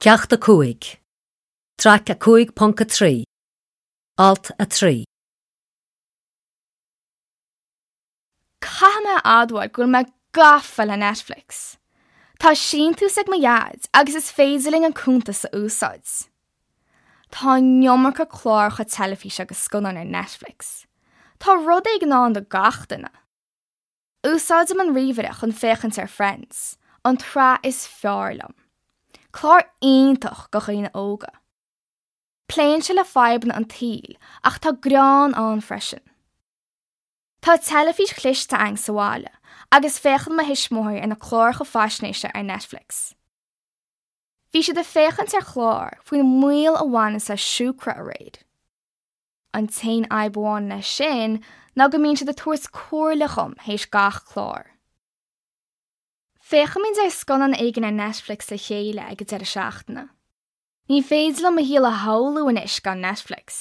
Ceacht 5, Traic 5.3, Alt 3. Caithfidh mé a admháil go bhfuil mé gafa le Netflix. Tá síntiús ag mo dhaid agus is féidir linn an cuntas a úsáid. Tá an iomarca cláracha teilifíse agus scannáin ar Netflix. Tá rud éigin ann do gach duine. Úsáidim an ríomhaire chun féachaint ar Friends, an tsraith is fearr liom. Clár iontach do dhaoine óga. Pléann sé le fadhbanna an tsaoil ach tá greann ann freisin. Tá teilifís chliste againn sa bhaile agus féachann mo thuismitheoirí ar na cláracha faisnéise ar Netflix. Bhí siad ag féachaint ar chlár faoin mbaol a bhaineanns le siúcra aréir. An t-aon fhadhb amháin leis sin ná go mbíonn siad ag tabhairt comhairle dhom théis gach clár. Féachaimid ar scannán éigin ar Netflix le chéile ag an deireadh seachtaine. Ní féidir liom mo shaol a shamhlú anois gan Netflix.